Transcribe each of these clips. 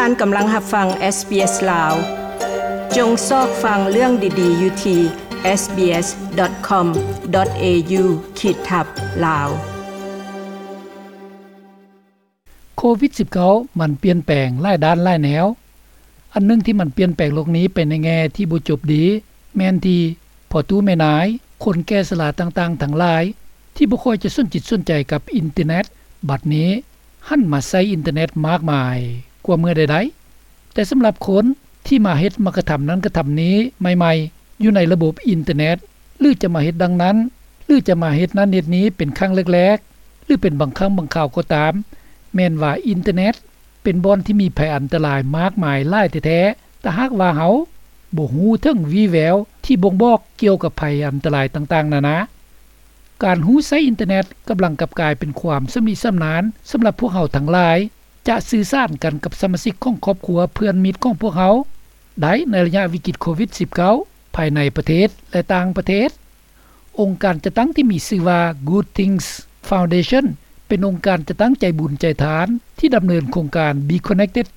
ທ່ານກຳລັງຮັບຟັງ SBS ລາວ. ຈົ່ງຊອກຟັງເລື່ອງດີໆຢູ່ທີ່ sbs.com.au/lawKhit/Lao. ໂຄວິດ-19 ມັນປ່ຽນແປງຫຼາຍດ້ານຫຼາຍແນວ. ອັນໜຶ່ງທີ່ມັນປ່ຽນແປງໂລກນີ້ໄປໃນແງ່ທີ່ບໍ່ຈົບດີ ແມ່ນທີ່ພໍ່ຕູ້ແມ່ນາຍ, ຄົນແກ່ຊະລາຕ່າງໆທັງຫຼາຍ ທີ່ບໍ່ຄ່ອຍຈະສົນຈິດສົນໃຈກັບອິນເຕີເນັດ ບັດນີ້ຫັນມາໃຊ້ອິນເຕີເນັດມາກມາຍກວ່າເມື່ອໃດໆ. ແຕ່ສຳລັບຄົນທີ່ມາເຮັດ ມາກະທຳນັ້ນກະທຳນີ້ໃໝ່ໆ ຢູ່ໃນລະບົບອິນເຕີເນັດ ຫຼືຈະມາເຮັດດັ່ງນັ້ນ ຫຼືຈະມາເຮັດນັ້ນເຮັດນີ້ເປັນຄັ້ງແລກໆ ຫຼືເປັນບາງຄັ້ງບາງຄາວກໍຕາມ, ແມ່ນວ່າອິນເຕີເນັດເປັນບ່ອນທີ່ມີໄພອັນຕະລາຍມາກມາຍຫຼາຍແທ້ໆ ຖ້າຫາກວ່າເຮົາບໍ່ຮູ້ເຖິງວີ່ແວວທີ່ບົ່ງບອກກ່ຽວກັບໄພອັນຕະລາຍຕ່າງໆນານາ. ການຮູ້ໃຊ້ອິນເຕີເນັດກຳລັງກັບກາຍເປັນຄວາມຊຳນິຊຳນານສຳລັບພວກເຮົາທັງຫຼາຍ ຈະສື່ສານກັນກັບສະມາຊິກຂອງຄອບຄົວເພື່ອນມິດຂອງພວກເຮົາໄດ້ໃນໄລຍະວິກິດໂຄວິດ-19 ພາຍໃນປະເທດ ແລະ ຕ່າງປະເທດ. ອົງການຈັດຕັ້ງທີ່ມີຊື່ວ່າ Good Things Foundation ເປັນອົງການຈັດຕັ້ງໃຈບຸນໃຈທານທີ່ດຳເນີນໂຄງການ Be Connected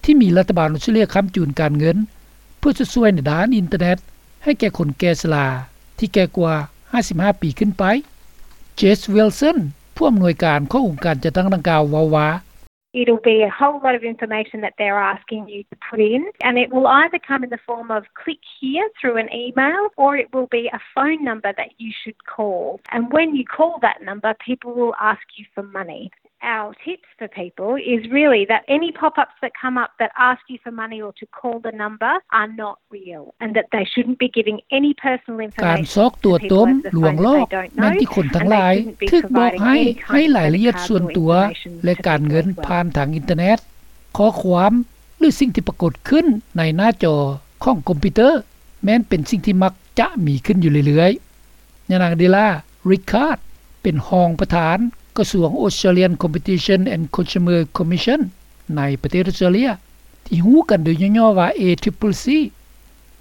ທີ່ມີລັດຖະບານອົດສະຕຣາເລຍຄ້ຳຈູນການເງິນ ເພື່ອຊົດຊ່ວຍໃນດ້ານອິນເຕີເນັດໃຫ້ແກ່ຄົນແກ່ຊະລາທີ່ແກ່ກວ່າຫ້າສິບຫ້າປີຂຶ້ນໄປ. Jess Wilson ຜູ້ອຳນວຍການຂອງອົງການຈັດຕັ້ງດັ່ງກ່າວເວົ້າວ່າ It'll be a whole lot of information that they're asking you to put in, and it will either come in the form of click here through an email, or it will be a phone number that you should call. And when you call that number, people will ask you for money. Our tips for people is really that any pop-ups that come up that ask you for money or to call the number are not real, and that they shouldn't be giving any personal information to people over the phone that they don't know, and they shouldn't be providing any kind of credit cards or information to people as well. ການຊອກຕົວະຕົມ ລວງລອກ ແມ່ນທີ່ຄົນທັງຫຼາຍຖືກບອກໃຫ້ໃຫ້ລາຍລະອຽດສ່ວນຕົວ ແລະ ການເງິນຜ່ານທາງອິນເຕີເນັດ. ຂໍ້ຄວາມ ຫຼື ສິ່ງທີ່ປາກົດຂຶ້ນໃນໜ້າຈໍຂອງຄອມພິວເຕີ ແມ່ນເປັນສິ່ງທີ່ມັກຈະມີຂຶ້ນຢູ່ເລື້ອຍໆ. ຍານາງ Della Rickard ເປັນຮອງປະທານກະຊວງ Australian Competition and Consumer Commission ໃນປະເທດອອສເຕຣເລຍ ທີ່ຮູ້ກັນໂດຍຫຍໍ້ໆວ່າ A C C C.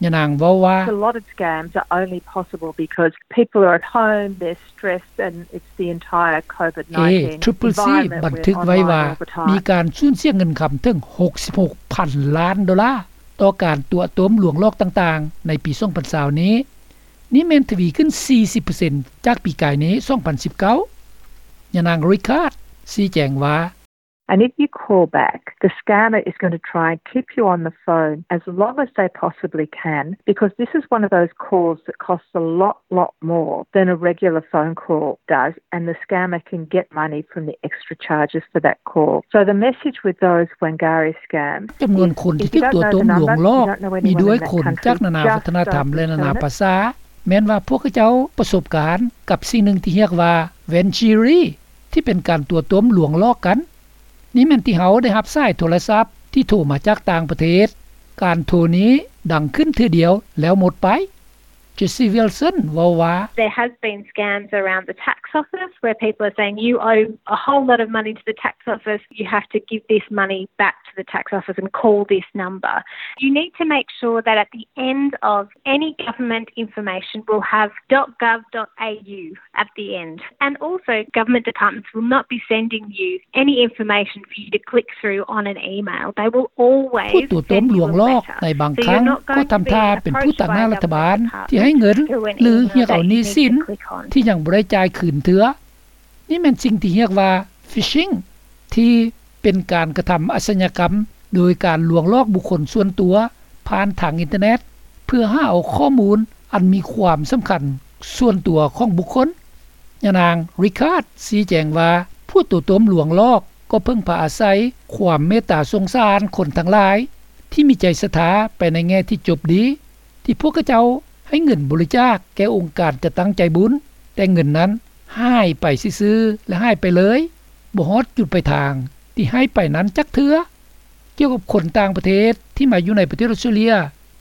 ຍານາງເວົ້າວ່າ A lot of scams are only possible because people are at home, they're stressed, and it's the entire COVID nineteen environment. A C C C ບັນທຶກໄວ້ວ່າ ມີການສູນເສຍເງິນຄຳເຖິງຫົກສິບຫົກພັນລ້ານໂດລາ ຕໍ່ການຕົວະຕົມລວງຫຼອກຕ່າງໆໃນປີສອງພັນຊາວນີ້. ນີ້ແມ່ນທະວີຂຶ້ນສີ່ສິບເປີເຊັນຈາກປີກາຍນີ້ ສອງພັນສິບເກົ້າ. ຍານາງ Rickard ຊີ້ແຈງວ່າ And if you call back, the scammer is going to try and keep you on the phone as long as they possibly can, because this is one of those calls that costs a lot, lot more than a regular phone call does, and the scammer can get money from the extra charges for that call. So the message with those Wangari scams is, if you don't know the number, you don't know anyone in that country, just don't return it. ຈຳນວນຄົນທີ່ຖືກຕົວະຕົມລວງຫຼອກມີດ້ວຍຄົນຈາກນານາວັດທະນະທຳ ແລະ ນານາພາສາ, ແມ່ນວ່າພວກເຂົາເຈົ້າປະສົບການກັບສິ່ງໜຶ່ງທີ່ຮຽກວ່າ Wangari ທີ່ເປັນການຕົວະຕົມລວງຫຼອກກັນ. ນີ້ແມ່ນທີ່ເຮົາໄດ້ຮັບສາຍໂທລະສັບທີ່ໂທມາຈາກຕ່າງປະເທດ. ການໂທນີ້ດັງຂຶ້ນເທື່ອດຽວແລ້ວໝົດໄປ. Jessie Wilson ເວົ້າວ່າ There has been scams around the tax office where people are saying, "You owe a whole lot of money to the tax office, you have to give this money back to the tax office and call this number." You need to make sure that at the end of any government information will have dot gov dot A U at the end. And also, government departments will not be sending you any information for you to click through on an email. They will always send you a letter. ຜູ້ຕົວະຕົມລວງຫຼອກໃນບາງຄັ້ງກໍທຳທ່າເປັນຜູ້ຕາງໜ້າລັດຖະບານທີ່ໃຫ້ເງິນ ຫຼື ຮຽກເອົາໜີ້ສິນທີ່ຍັງບໍ່ໄດ້ຈ່າຍຄືນເທື່ອ. ນີ້ແມ່ນສິ່ງທີ່ຮຽກວ່າ phishing ທີ່ເປັນການກະທຳອາຊະຍາກຳໂດຍການລວງຫຼອກບຸກຄົນສ່ວນຕົວຜ່ານທາງອິນເຕີເນັດ ເພື່ອຫາເອົາຂໍ້ມູນອັນມີຄວາມສຳຄັນສ່ວນຕົວຂອງບຸກຄົນ. ຍານາງ Rickard ຊີ້ແຈງວ່າ ຜູ້ຕົວະຕົມລວງຫຼອກກໍເພິ່ງພາອາໄສຄວາມເມດຕາສົງສານຄົນທັງຫຼາຍທີ່ມີໃຈສັດທາໄປໃນແງ່ທີ່ຈົບດີ ທີ່ພວກເຂົາເຈົ້າໃຫ້ເງິນບໍລິຈາກແກ່ອົງການຈັດຕັ້ງໃຈບຸນ, ແຕ່ເງິນນັ້ນຫາຍໄປຊື່ໆ ແລະ ຫາຍໄປເລີຍ, ບໍ່ຮອດຈຸດປາຍທາງທີ່ໃຫ້ໄປນັ້ນຈັກເທື່ອ. ກ່ຽວກັບຄົນຕ່າງປະເທດທີ່ມາຢູ່ໃນປະເທດອອສເຕຣເລຍ,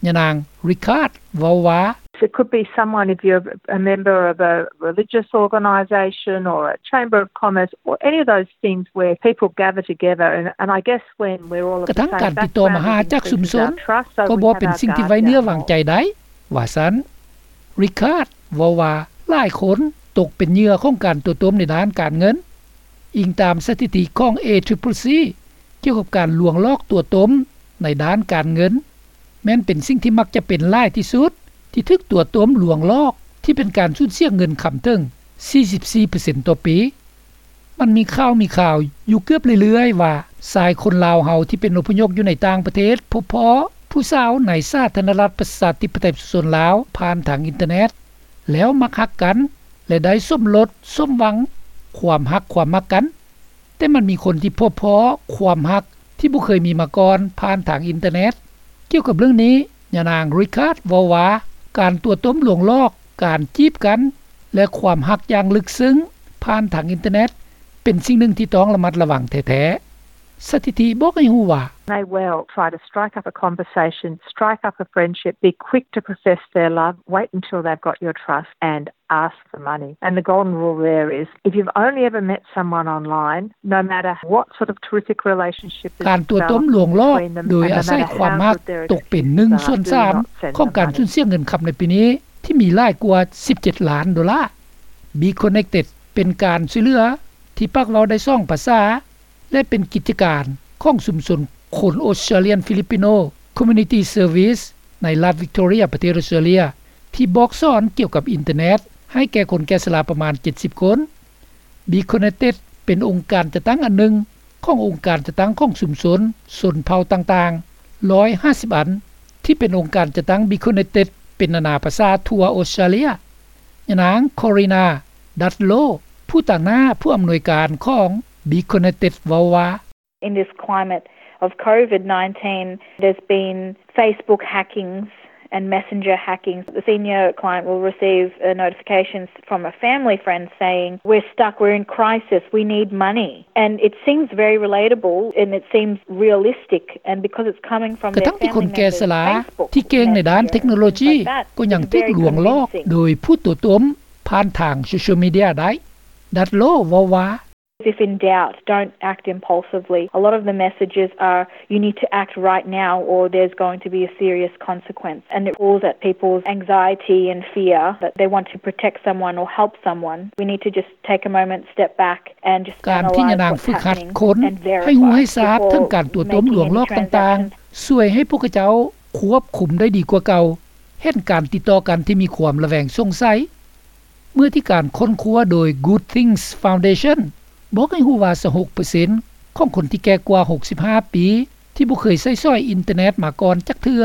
ຍານາງ Rickard ເວົ້າວ່າ It could be someone, if you're a member of a religious organisation or a chamber of commerce or any of those things where people gather together, and, and I guess when we're all of the same background, we can increase our trust, so we have our guard down more. ກະທັ້ງການຕິດຕໍ່ມາຫາຈາກຊຸມຊົນກໍບໍ່ເປັນສິ່ງທີ່ໄວ້ເນື້ອວາງໃຈໄດ້ ວ່າຊັ້ນ. Rickard ເວົ້າວ່າ ຫຼາຍຄົນຕົກເປັນເຫຍື່ອຂອງການຕົວະຕົມໃນດ້ານການເງິນ. ອີງຕາມສະຖິຕິຂອງ A C C C ກ່ຽວກັບການລວງຫຼອກຕົວະຕົມ ໃນດ້ານການເງິນ ແມ່ນເປັນສິ່ງທີ່ມັກຈະເປັນຫຼາຍທີ່ສຸດ ທີ່ຖືກຕົວະຕົ້ມລວງຫຼອກ ທີ່ເປັນການສູນເສຍເງິນຄຳເຖິງ ສີ່ສິບສີ່ເປີເຊັນຕໍ່ປີ. ມັນມີຂ່າວ ມີຂ່າວຢູ່ເກືອບເລື້ອຍໆວ່າ ຊາຍຄົນລາວເຮົາທີ່ເປັນອົບພະຍົບຢູ່ໃນຕ່າງປະເທດ ພົບພໍ້ຜູ້ສາວໃນສາທາລະນະລັດປະຊາທິປະໄຕປະຊາຊົນລາວ ຜ່ານທາງອິນເຕີເນັດ ແລ້ວມັກຮັກກັນ ແລະ ໄດ້ສົມລົດສົມຫວັງຄວາມຮັກຄວາມມັກກັນ. ແຕ່ມັນມີຄົນທີ່ພົບພໍ້ຄວາມຮັກທີ່ບໍ່ເຄີຍມີມາກ່ອນຜ່ານທາງອິນເຕີເນັດ. ກ່ຽວກັບເລື່ອງນີ້ ຍານາງ Rickard ເວົ້າວ່າ ການຕົວະຕົ້ມລວງຫຼອກ, ການຈີບກັນ ແລະ ຄວາມຮັກຢ່າງເລິກເຊິ່ງຜ່ານທາງອິນເຕີເນັດ ເປັນສິ່ງໜຶ່ງທີ່ຕ້ອງລະມັດລະວັງແທ້ໆ. ສະຖິຕິບອກໃຫ້ຮູ້ວ່າ May well try to strike up a conversation, strike up a friendship, be quick to profess their love, wait until they've got your trust and ask for money. And the golden rule there is, if you've only ever met someone online, no matter what sort of terrific relationship has developed between them, ການຕົວະຕົ້ມລວງຫຼອກ ໂດຍອາໄສຄວາມຮັກ ຕົກເປັນໜຶ່ງສ່ວນສາມຂອງການສູນເສຍເງິນຄຳໃນປີນີ້ ທີ່ມີຫຼາຍກວ່າສິບເຈັດລ້ານໂດລາ. Be Connected ເປັນການຊ່ວຍເຫຼືອທີ່ປາກເວົ້າໄດ້ສອງພາສາ ແລະ ເປັນກິດຈະການຂອງຊຸມຊົນຄົນ Australian Filipino Community Service ໃນລັດ Victoria ປະເທດ Australia ທີ່ບອກສອນກ່ຽວກັບອິນເຕີເນັດໃຫ້ແກ່ຄົນແກ່ຊະລາປະມານເຈັດສິບຄົນ. Be Connected ເປັນອົງການຈັດຕັ້ງອັນໜຶ່ງຂອງອົງການຈັດຕັ້ງຂອງຊຸມຊົນຊົນເຜົ່າຕ່າງໆ ຮ້ອຍຫ້າສິບອັນ ທີ່ເປັນອົງການຈັດຕັ້ງ Be Connected ເປັນນານາພາສາທົ່ວ Australia. ຍານາງ Corina Dudlow ຜູ້ຕາງໜ້າຜູ້ອຳນວຍການຂອງ Be Connected ເວົ້າວ່າ In this climate of COVID nineteen, there's been Facebook hackings and Messenger hackings. The senior client will receive a notification from a family friend saying, "We're stuck, we're in crisis, we need money." And it seems very relatable and it seems realistic, and because it's coming from their family members' Facebook messages and things like that, it's very convincing. ແຕ່ຄົນທີ່ເກັ່ງໃນດ້ານເທັກໂນໂລຈີ ກໍຍັງຖືກລວງຫຼອກໂດຍຜູ້ຕົວະຕົ້ມຜ່ານທາງໂຊຊຽວມີເດຍໄດ້. Dudlow ເວົ້າວ່າ If in doubt, don't act impulsively. A lot of the messages are, "You need to act right now or there's going to be a serious consequence." And it pulls at people's anxiety and fear that they want to protect someone or help someone. We need to just take a moment, step back and just analyze what's happening and verify before making any transactions. ການທີ່ຍານາງຝຶກຫັດຄົນໃຫ້ຮູ້ໃຫ້ຊາບເຖິງການຕົວະຕົ້ມລວງຫຼອກຕ່າງໆ ຊ່ວຍໃຫ້ພວກເຂົາເຈົ້າຄວບຄຸມໄດ້ດີກວ່າເກົ່າ, ເຫັນການຕິດຕໍ່ກັນທີ່ມີຄວາມລະແວງສົງໄສ. ເມື່ອທີ່ການຄົ້ນຄວ້າໂດຍ Good Things Foundation ບອກໃຫ້ຮູ້ວ່າ ຊາວຫົກເປີເຊັນຂອງຄົນທີ່ແກ່ກວ່າຫົກສິບຫ້າປີ ທີ່ບໍ່ເຄີຍໃຊ້ສອຍອິນເຕີເນັດມາກ່ອນຈັກເທື່ອ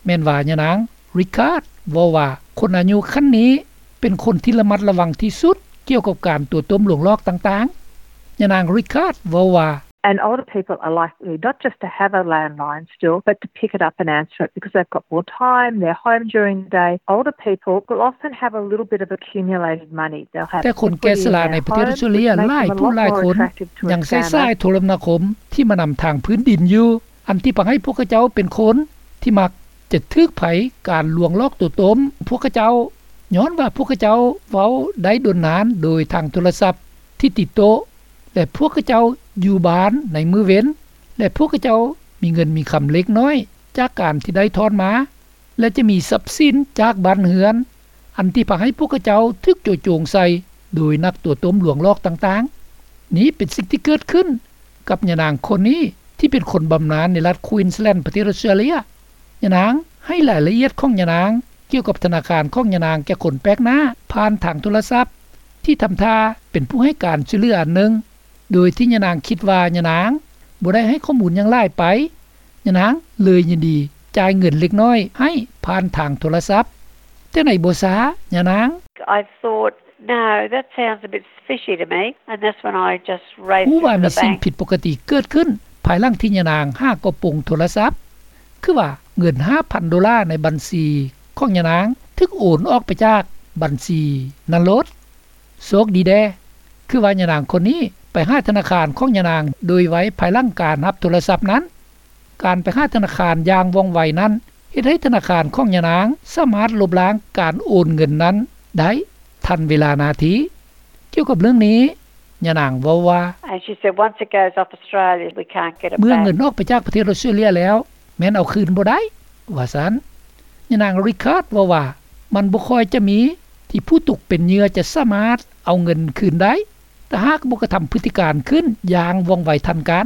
ແມ່ນວ່າຍານາງ Rickard ເວົ້າວ່າ ຄົນອາຍຸຂັ້ນນີ້ເປັນຄົນທີ່ລະມັດລະວັງທີ່ສຸດກ່ຽວກັບການຕົວະຕົ້ມລວງຫຼອກຕ່າງໆ. ຍານາງ Rickard ເວົ້າວ່າ And older people are likely not just to have a landline still, but to pick it up and answer it because they've got more time, they're home during the day. Older people will often have a little bit of accumulated money. They'll have equity in their home, which makes them a lot more attractive to expand that. ແຕ່ຄົນແກ່ຊະລາໃນປະເທດອອສເຕຣເລຍຫຼາຍຜູ້ຫຼາຍຄົນຍັງໃຊ້ສາຍໂທລະນາຄົມທີ່ມານຳທາງພື້ນດິນຢູ່, ອັນທີ່ພາໃຫ້ພວກເຂົາເຈົ້າເປັນຄົນທີ່ມັກຈະຖືກໄພການລວງຫຼອກຕົວະຕົ້ມພວກເຂົາເຈົ້າ, ຍ້ອນວ່າພວກເຂົາເຈົ້າເວົ້າໄດ້ດົນນານໂດຍທາງໂທລະສັບທີ່ຕິດໂຕະ ແລະ ພວກເຂົາເຈົ້າຢູ່ບ້ານໃນມື້ເວັນ ແລະ ພວກເຂົາເຈົ້າມີເງິນມີຄຳເລັກນ້ອຍຈາກການທີ່ໄດ້ຖອນມາ ແລະ ຈະມີຊັບສິນຈາກບ້ານເຮືອນ ອັນທີ່ພາໃຫ້ພວກເຂົາເຈົ້າຖືກໂຈະໂຈງໃສ່ໂດຍນັກຕົວະຕົ້ມລວງຫຼອກຕ່າງໆ. ນີ້ເປັນສິ່ງທີ່ເກີດຂຶ້ນກັບຍານາງຄົນນີ້ ທີ່ເປັນຄົນບຳນານໃນລັດ Queensland ປະເທດອອສເຕຣເລຍ. ຍານາງໃຫ້ລາຍລະອຽດຂອງຍານາງກ່ຽວກັບທະນາຄານຂອງຍານາງແກ່ຄົນແປກໜ້າຜ່ານທາງໂທລະສັບ ທີ່ທຳທ່າເປັນຜູ້ໃຫ້ການຊ່ວຍເຫຼືອອັນໜຶ່ງ ໂດຍທີ່ຍານາງຄິດວ່າຍານາງບໍ່ໄດ້ໃຫ້ຂໍ້ມູນຫຍັງຫຼາຍໄປ, ຍານາງເລີຍຍິນດີຈ່າຍເງິນເລັກນ້ອຍໃຫ້ຜ່ານທາງໂທລະສັບ. ແຕ່ໃນບໍ່ຊ້າ ຍານາງ I thought, "No, that sounds a bit fishy to me," and that's when I just raced into the bank. ຮູ້ວ່າມີສິ່ງຜິດປົກກະຕິເກີດຂຶ້ນພາຍຫຼັງທີ່ຍານາງຫາກະໂປງໂທລະສັບ, ຄືວ່າເງິນຫ້າພັນໂດລາໃນບັນຊີຂອງຍານາງຖືກໂອນອອກໄປຈາກບັນຊີນັ້ນໂລດ. ໂຊກດີແດ່ ຄືວ່າຍານາງຄົນນີ້ໄປຫາທະນາຄານຂອງຍານາງໂດຍໄວພາຍຫຼັງການຮັບໂທລະສັບນັ້ນ. ການໄປຫາທະນາຄານຢ່າງວ່ອງໄວນັ້ນ ເຮັດໃຫ້ທະນາຄານຂອງຍານາງສາມາດລົບລ້າງການໂອນເງິນນັ້ນໄດ້ທັນເວລານາທີ. ກ່ຽວກັບເລື່ອງນີ້ ຍານາງເວົ້າວ່າ And she said, "Once it goes off Australia, we can't get it back." ເມື່ອເງິນອອກໄປຈາກປະເທດອອສເຕຣເລຍແລ້ວ ແມ່ນເອົາຄືນບໍ່ໄດ້ ວ່າຊັ້ນ. ຍານາງ Rickard ເວົ້າວ່າ ມັນບໍ່ຄ່ອຍຈະມີທີ່ຜູ້ຕົກເປັນເຫຍື່ອຈະສາມາດເອົາເງິນຄືນໄດ້ ຖ້າຫາກບໍ່ກະທຳພຶດຕິການຂຶ້ນຢ່າງວ່ອງໄວທັນການ.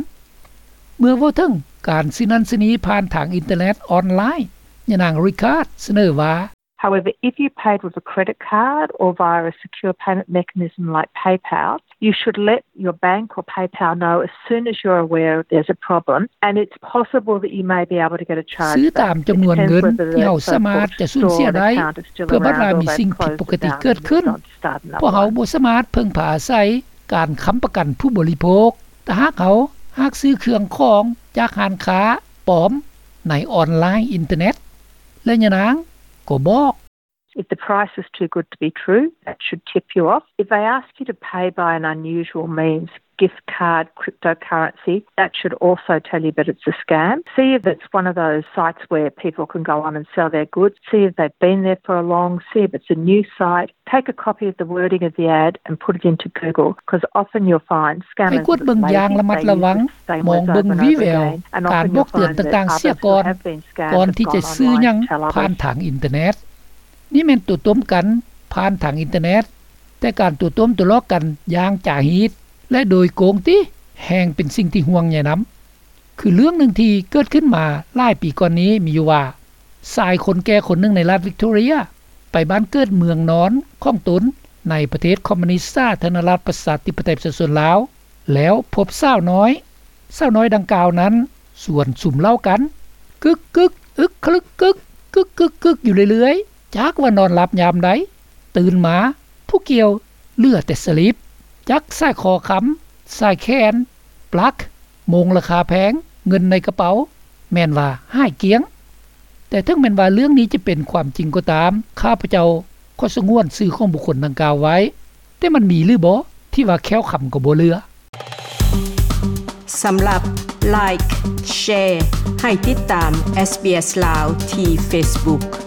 ເມື່ອເວົ້າເຖິງ ການຊື້ນັ້ນຊື້ນີ້ຜ່ານທາງອິນເຕີເນັດອອນລາຍ. ຍານາງ Ricard ສະເໜີວ່າ However, if you paid with a credit card or via a secure payment mechanism like PayPal, you should let your bank or PayPal know as soon as you're aware there's a problem, and it's possible that you may be able to get a charge back. ຊື້ຕາມຈຳນວນເງິນທີ່ເຮົາສາມາດຈະສູນເສຍໄດ້ ເພື່ອບັດວ່າມີສິ່ງຜິດປົກກະຕິເກີດຂຶ້ນ. ພວກເຮົາບໍ່ສາມາດເພິ່ງພາອາໄສການຄ້ຳປະກັນຜູ້ບໍລິໂພກ. ຖ້າຫາກເຮົາຫາກຊື້ເຄື່ອງຂອງຈາກຮ້ານຄ້າປອມໃນອອນລາຍອິນເຕີເນັດ. ແລະ ຍານາງກໍບອກ If the price is too good to be true, that should tip you off. If they ask you to pay by an unusual means, gift card, cryptocurrency, that should also tell you that it's a scam. See if it's one of those sites where people can go on and sell their goods. See if they've been there for a long, see if it's a new site. Take a copy of the wording of the ad and put it into Google, 'cause often you'll find scammers. ໃຫ້ກວດເບິ່ງຢ່າງລະມັດລະວັງ, ມອງເບິ່ງວີແວວການບອກເຕືອນຕ່າງໆເສຍກ່ອນ ກ່ອນທີ່ຈະຊື້ຫຍັງຜ່ານທາງອິນເຕີເນັດ. ນີ້ແມ່ນຕົວະຕົ້ມກັນຜ່ານທາງອິນເຕີເນັດ, ແຕ່ການຕົວະຕົ້ມຕົວະຫຼອກກັນຢ່າງຈາຮີດ ແລະ ໂດຍໂກງຕິ ແຮ່ງເປັນສິ່ງທີ່ຫ່ວງໃຍນຳ. ຄືເລື່ອງໜຶ່ງທີ່ເກີດຂຶ້ນມາຫຼາຍປີກ່ອນນີ້ມີຢູ່ວ່າ ຊາຍຄົນແກ່ຄົນໜຶ່ງໃນລັດວິກຕໍເຣັຍ ໄປບ້ານເກີດເມືອງນອນຂອງຕົນໃນປະເທດຄອມມູນິດສາທາລະນະລັດປະຊາທິປະໄຕປະຊາຊົນລາວ ແລ້ວພົບສາວນ້ອຍ. ສາວນ້ອຍດັ່ງກ່າວນັ້ນຊວນສຸມເຫຼົ້າກັນ ກຶກໆ ອຶກຄະລຶກກຶກ ກຶກໆ ຢູ່ເລື້ອຍໆ ຈັກວ່ານອນຫຼັບຍາມໃດ, ຕື່ນມາຜູ້ກ່ຽວເຫຼືອແຕ່ສະລິບ. ຈັກສາຍຄໍຄຳ, ສາຍແຂນ, ປລັກ, ໂມງລາຄາແພງ, ເງິນໃນກະເປົາ ແມ່ນວ່າຫາຍກ້ຽງ. ແຕ່ເຖິງແມ່ນວ່າເລື່ອງນີ້ຈະເປັນຄວາມຈິງກໍຕາມ, ຂ້າພະເຈົ້າຂໍສະຫງວນຊື່ຂອງບຸກຄົນດັ່ງກ່າວໄວ້, ແຕ່ມັນມີຫຼືບໍ່ທີ່ວ່າແຄ້ວຄຳກໍບໍ່ເຫຼືອ? ສຳລັບ Like Share ໃຫ້ຕິດຕາມ SBS ລາວ ທີ່ Facebook.